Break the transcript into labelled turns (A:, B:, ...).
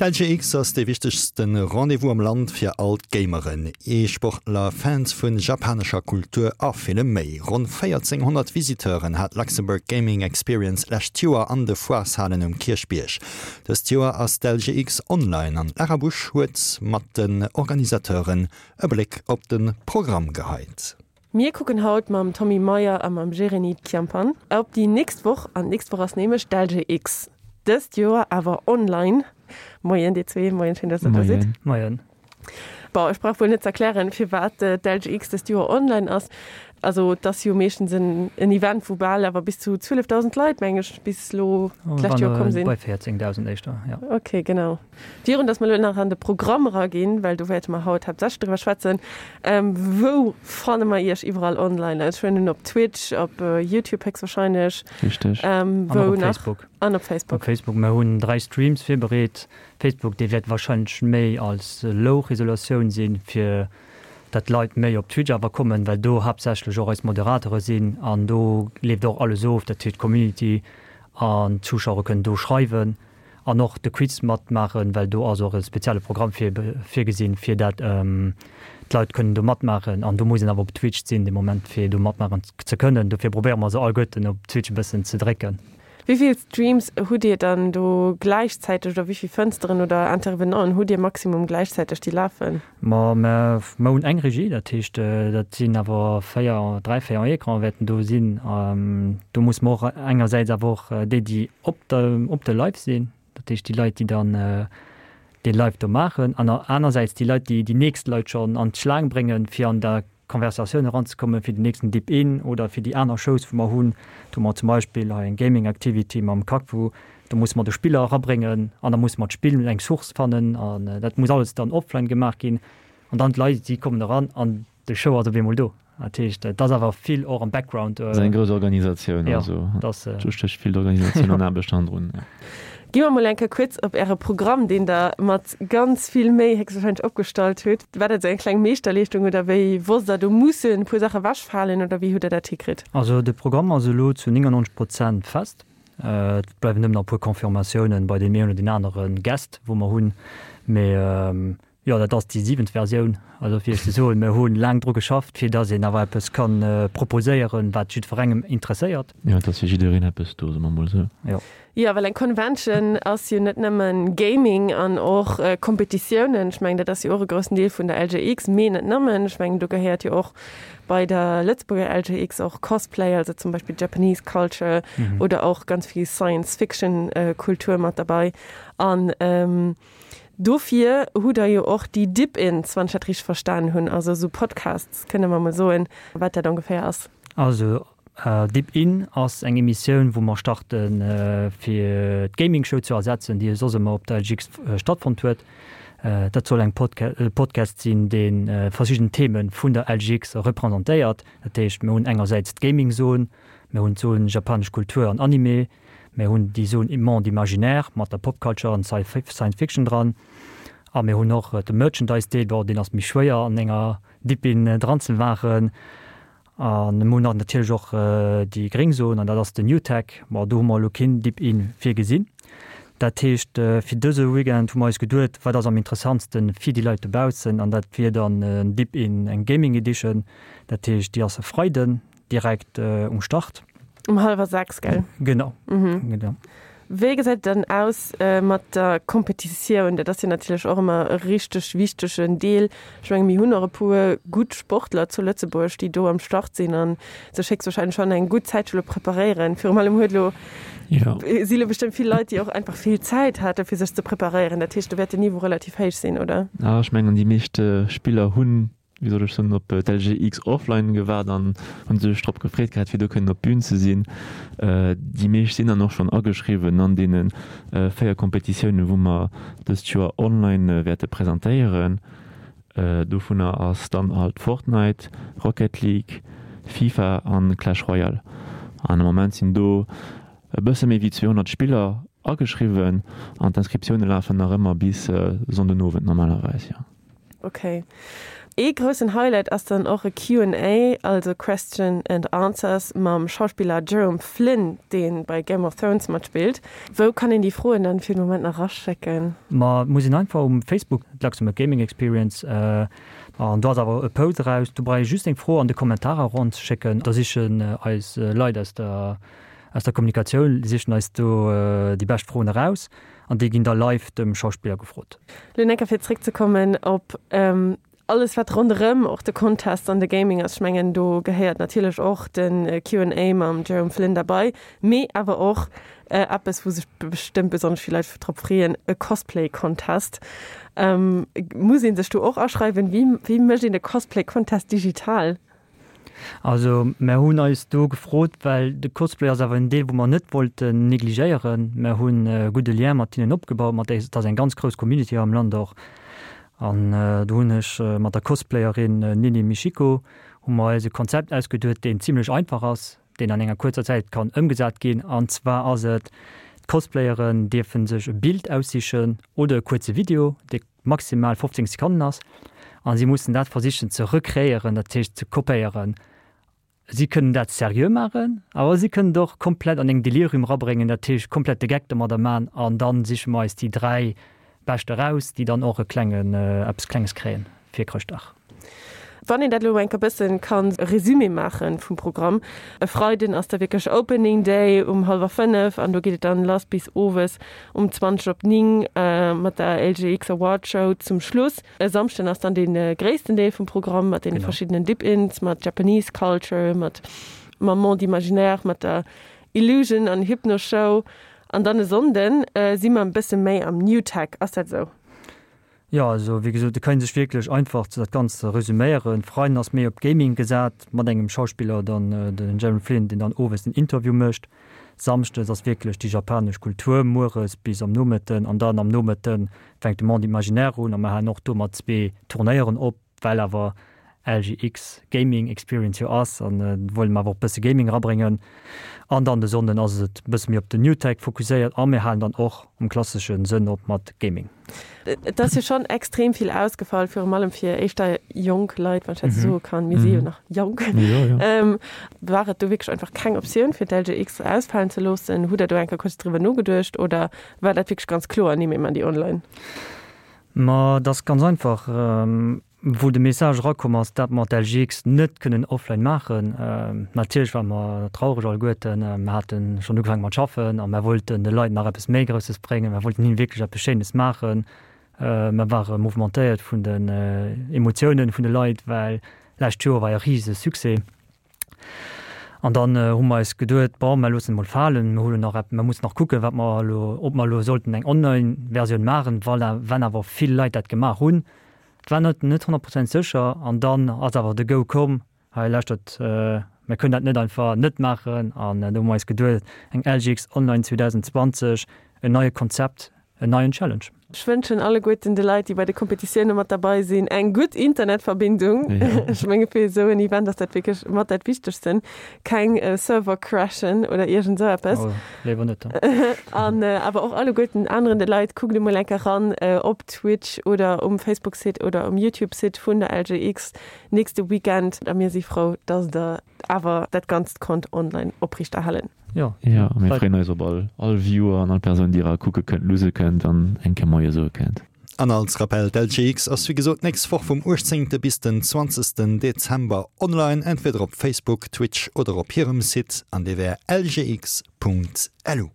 A: D'LGX ass dee wichtegste Rendez-vous am Land fir all d'Gameren, E-Sportler, Fans vu japanescher Kultur a villem méi. Ronn 1.400 Visiteuren hat d'Luxembourg Gaming Experience d'lescht Joer an de Foireshalen um Kierchbierg. Dëst Joer ass d'LGX online an d'Lara Busch huet mat den Organisateuren e Bléck op de Programm geheit.
B: Mir kucken haut mam Tommy Meyer a mam Jeremy Chiampan op déi nächst Woch an d'nächst Woch ass nämlech d'LGX. Dëst Joer awer online. Moien dir zwee, moien, schéin dass der do sidd.
C: Moien.
B: Bon, ech brauch wuel net z'erklären firwat d'LGX dëst Joer online ass. Also et ass jo meeschtens en Event wou bal awer bis zu 12.000 Leit meng ech bis elo d'lescht Joer komm sinn.
C: Bei 14.000 éischter, jo.
B: Ok, genau. Virun dass mer elo nach an de Programm eraginn, well do wäerte mer haut haaptsächlech driwwer schwätzen, wou fanne mer Iech iwwerall online? Also ech huelen un op Twitch, op Youtube héchstwahrscheinlech.
D: Richteg.
C: An och
B: Wou
C: op
B: nach?
C: Facebook.
B: An op Facebook.
C: Op Facebook. Mer hunn 3 Streams virbereet. Facebook, dee wäert wahrscheinlech méi als Low-Resolatioun sinn, fir dat d'Leit méi op Twitch awer kommen, well do haaptsächlech och eis Moderateure sinn an do leeft och alles of, dat heescht d'Community an d'Zuschauere kënnen do schreiwen. An och de Quiz matmaachen, well do ass och e spezielle Programm virgesinn, fir dat d'Leit kënnen do matmaachen. An do muss een awer op Twitch sinn dee Moment, fir do matmaachen ze kënnen. Dofir probéiere mer se alleguerten op Twitch e bëssen ze drécken.
B: Wéi vill Streams hutt Dir dann do gläichzäiteg oder wéi vill Fënsteren oder Intervenanten hutt Dir maximum gläichzäiteg, déi lafen?
C: Ma mer hunn eng Regie, dat heescht, dat sinn awer 4, 3, 4 Ecranen wäerten do sinn. Do musse mer och engersäits awer och déi, déi op der, op de Live sinn, dat heescht déi Leit, déi dann dee Live do maachen, an anersäits déi Leit, déi déi nächst Leit schonn an d'Schlaang bréngen, fir an der Konversatioun eranzekommen, fir den nächsten Dip In oder fir déi aner Shows, wou mer hunn. Do hu mer zum Beispill hei eng Gaming Activity mam Kakvu, do musse mer de Spiller erabréngen an da musse mer d'Spill, eng Source fannen an dat muss alles dann offline gemaach ginn. An dann d'Leit, si kommen eran an de Show ass op eemol do. Dat heescht, et ass awer vill och am Background.
D: Et ass eng grouss Organisatioun, also do stécht vill Organisatioun an Aarbecht hannendrun.
B: Gi mer mol eng Kéier kuerz op Äre Programm, deen Der mat ganz vill Méi héchstwahrscheinlech opgestallt hutt. War dat esou eng kleng Meeschterleeschtung oder wéi wosst Der, do mussen e puer Saache ewechfalen oder wéi hutt Der dat hikritt?
C: Also de Programm ass elo zu 99 Prozent fest. Et bleiwen nëmmen nach e puer Confirmatiounen bei deem een oder deen anere Guest, wou mer hunn. Mee Jo, dat ass déi siwent Versioun. Also fir Iech ze soen, mir hu laang dru geschafft, fir datt een awer eppes ka proposéieren, wat jiddwerengem interesséiert.
D: Jo, et ass fir jiddereen eppes do, soe mer mol esou.
C: Jo.
B: Jo, well eng Convention ass jo net nëmmen Gaming an och Kompetitiounen. Ech mengen, dat ass jo och e groussen Deel vun der LGX, mee net nëmmen. Ech mengen, do gehéiert jo och bei der Lëtzebuerger LGX och Cosplay, also zum Beispill Japanese Culture oder och ganz vill Science-Fiction-Kultur mat derbei. An Dofir hutt Der jo och déi Dip-Ins, wann ech dat richteg verstanen hunn, also esou Podcasts, kënne mer mol soen, wat dat ongeféier ass?
C: Also Dip-In ass eng Emissioun, wou mer starten, fir d'Gaming Show ze ersetzen, déi soss ëmmer op der LGX stattfonnt huet. Dat soll eng e Podcast sinn, dee verschidden Theme vun der LGX representéiert. Dat heescht, mir hunn engersäits d'Gaming-Zon, mir hunn d'Zon japanesch Kultur an Anime, Mir hunn déi Zone Monde imaginaire mat der Pop Culture an Science Fiction dran. A mir hunn och de Merchandise Deel, bon deen ass méi schwéier an enger Dip-In dran ze maachen. A mir hunn och natierlech och déi gréng Zone an dat ass den New Tech. Bon do hu mer elo keen Dip-In virgesinn. Dat heescht fir dëse Weekend hu mer eis geduet, wat ass am interessantste fir déi Leit dobaussen an dat wier dann en Dip-In, eng Gaming Edition. Dat heescht déi ass e Freiden. Direkt um Start.
B: Um hallwer 6, gell?
C: Genau. Mhm. Genau.
B: Wéi gesäit et dann aus mat der Kompetitioun? Dat ass jo natierlech och ëmmer e richteg wichtegen Deel. Ech menge mir hunn och e puer gutt Sportler zu Lëtzebuerg, déi do am Start sinn a sech héchstwahrscheinlech schonn eng gutt Zäit scho lo preparéieren. Virum allem huet elo, si lo bestëmmt vill Leit, déi och einfach vill Zäit hate fir sech ze preparéieren. Dat heescht, do wäert den Niveau relativ héich sinn, oder?
D: Ech mengen déi meescht Spiller hunn wéi soll ech soen, op d'LGX Offline gewaart an hunn sech drop gefreet gehat, fir do kënnen op d'Bün ze sinn. Déi meescht sinn dann och schonn ageschriwwen an deene 4 Kompetitiounen, wou mer dëst Joer online wäerte presentéieren. Dovunner ass dann halt Fortnite, Rocket League, FIFA an Clash Royale. An am Moment sinn do e bësse méi wéi 200 Spiller ageschriwwen an d'Inscriptioune lafen nach ëmmer bis Sonndenowend normalerweis, jo.
B: Ok. Ee groussen Highlight ass dann och e Q&A, also Question and Answers, mam Schauspiller Jerome Flynn, dee bei Game of Thrones matspillt. Wou kann een déi Froen dann fir den Moment nach eraschécken?
C: Ma et muss een einfach um Facebook, Luxembourg Gaming Experience, an do ass awer e Post eraus, do brauch ee just eng Fro an de Kommentarer eranzeschécken, da sichen eis Leit aus der aus der Kommunikatioun sichen eis do déi bescht Froen eraus an déi ginn da live dem Schauspiller gefrot.
B: Lo enker fir zréckzekommen op alles wat ronderëm och de Contest an de Gaming ass, ech mengen do gehéiert natierlech och de Q&A mam Jerome Flynn derbei, mee awer och eppes wou sech bestëmmt besonnesch vill Leit drop freeën, e Cosplay Contest. Muss ee sech do och aschreiwen? Wéi wéi mécht een e Cosplay Contest digital?
C: Also mär hunn eis do gefrot, well de Cosplay ass awer en Deel wou mer net wollten negligéieren. Mär hunn e gudde Lien mat hinnen opgebaut, mat et ass eng ganz grouss Community hei am Land och. An do hunn ech mat der Cosplayerin Nini Michiko hu mer eis e Konzept ausgeduet, deen zimlech einfach ass, deen an enger kuerzer Zäit kann ëmgesat ginn. An zwar ass et, d'Cosplayeren dierfe sech e Bild aussichen oder e kuerze Video, dee maximal 15 Sekonnen ass, a si mussen dat versichen ze recréieren, dat heescht ze kopéieren. Si kënnen dat seriö maachen, awer si kënnen et och komplett an eng Delirium erabréngen, dat heescht komplett de Geck domadder maachen an da siche mer eis déi 3 bescht eraus, déi dann och e klengen, eppes Klenges kréien fir Chrëschtdag.
B: Wann een dat elo enker bëssen kann e Résumé maachen vum Programm, e Freiden ass da wierklech Opening Day um hallwer 5 an do geet et dann lass bis owes um 20 op 9 mat der LGX Award Show zum Schluss. E Samschden ass dann dee gréissten Deel vum Programm mat deene verschiddenen Dip-Ins, mat Japanese Culture, mat mam Monde Imaginaire, mat der Illusion an Hypno Show an dann e Sonnden si mer e bësse méi am New Tech, ass dat esou?
C: Jo, also wéi gesot, et kann ee sech wierklech einfach dat Ganzt resüméieren. Freiden ass méi op Gaming gesat, mat engem Schauspiller dann, den Jeremy Flynn, deen dann owes den Interview mécht. Samschdes ass wierklech déi japanesch Kultur, mueres bis am Nomëtten an dann am Nomëtte fänkt de Monde Imaginaire un a mer halen och do mat zwee Turnéieren op. Well awer LGX Gaming Experience jo ass an wëlle mer awer och bësse Gaming erabréngen. An dann de Sonnden ass et bësse méi op den New Tech fokusséiert a mir halen dann och am klassesche Sënn op mat Gaming.
B: Et ass jo schonn extrem vill ausgefall, virum allem fir éischter jonk Leit, wann ech dat esou soe kann. Mir si jo nach jonk. War et do wierklech einfach keng Optioun fir d'LGX ausfalen ze loossen? Hutt Der do eng Kéier kuerz driwwer nogeduecht oder war dat wierklech ganz kloer, nee mir man déi online?
C: Ma et ass ganz einfach, wou de Message erakomm ass, dat mer d'LGX net kënnen offline maachen. Natierlech ware mer traureg alleguerten. Mer hate schonn ugefaange mat schaffen a mer wollten de Leit nach eppes méi Grousses bréngen. Mer wollten hinnen wierklech eppes Schéines maachen. Mer ware mouvementéiert vun den Emotiounen vun de Leit, well lescht Joer war e rise Succès. An dann hu mer eis geduet, bon, mer loossen et mol falen, mer huelen nach epp, mer mussen nach kucken, wat mer elo, ob mer elo sollten eng Online-Versioun maachen, voilà, wenn awer vill Leit dat gemaach hunn. Et war net net 100 Prozent sécher. An dann ass awer de Go komm, hei lauschtert, mer kënnen dat net einfach net maachen. An do hu mer eis geduet, eng LGX Online 2020, en neie Konzept, En neien Challenge.
B: Ech wënschen alleguerten de Leit, déi bei de Kompetitioune mat derbei sinn, eng gutt Internetverbindung. Ech menge fir esou en Event ass dat wierklech mat dat Wichtegsten. Keng Server-Crashen oder iergend esou eppes.
C: Oh, léiwer net.
B: An awer och alleguerten aneren de Leit, kuckt emol eng Kéier ran op Twitch oder um Facebook-Site oder um YouTube-Site vun der LGX nächste Weekend. A mir si frou, dass der awer dat Ganzt konnt online opriichterhalen.
D: Jo, Jo, a mir freeën eis op all all Viewer an all Persoun, déi era kucke kënnt, luuse kënnt an eng Kéier Moie soe kënnt.
A: An als Rappell, D'LGX ass wéi gesot d'nächst Woch vum 18. bis den 20. Dezember online, entweder op Facebook, Twitch oder op hirem Site, an dee wär lgx.lu.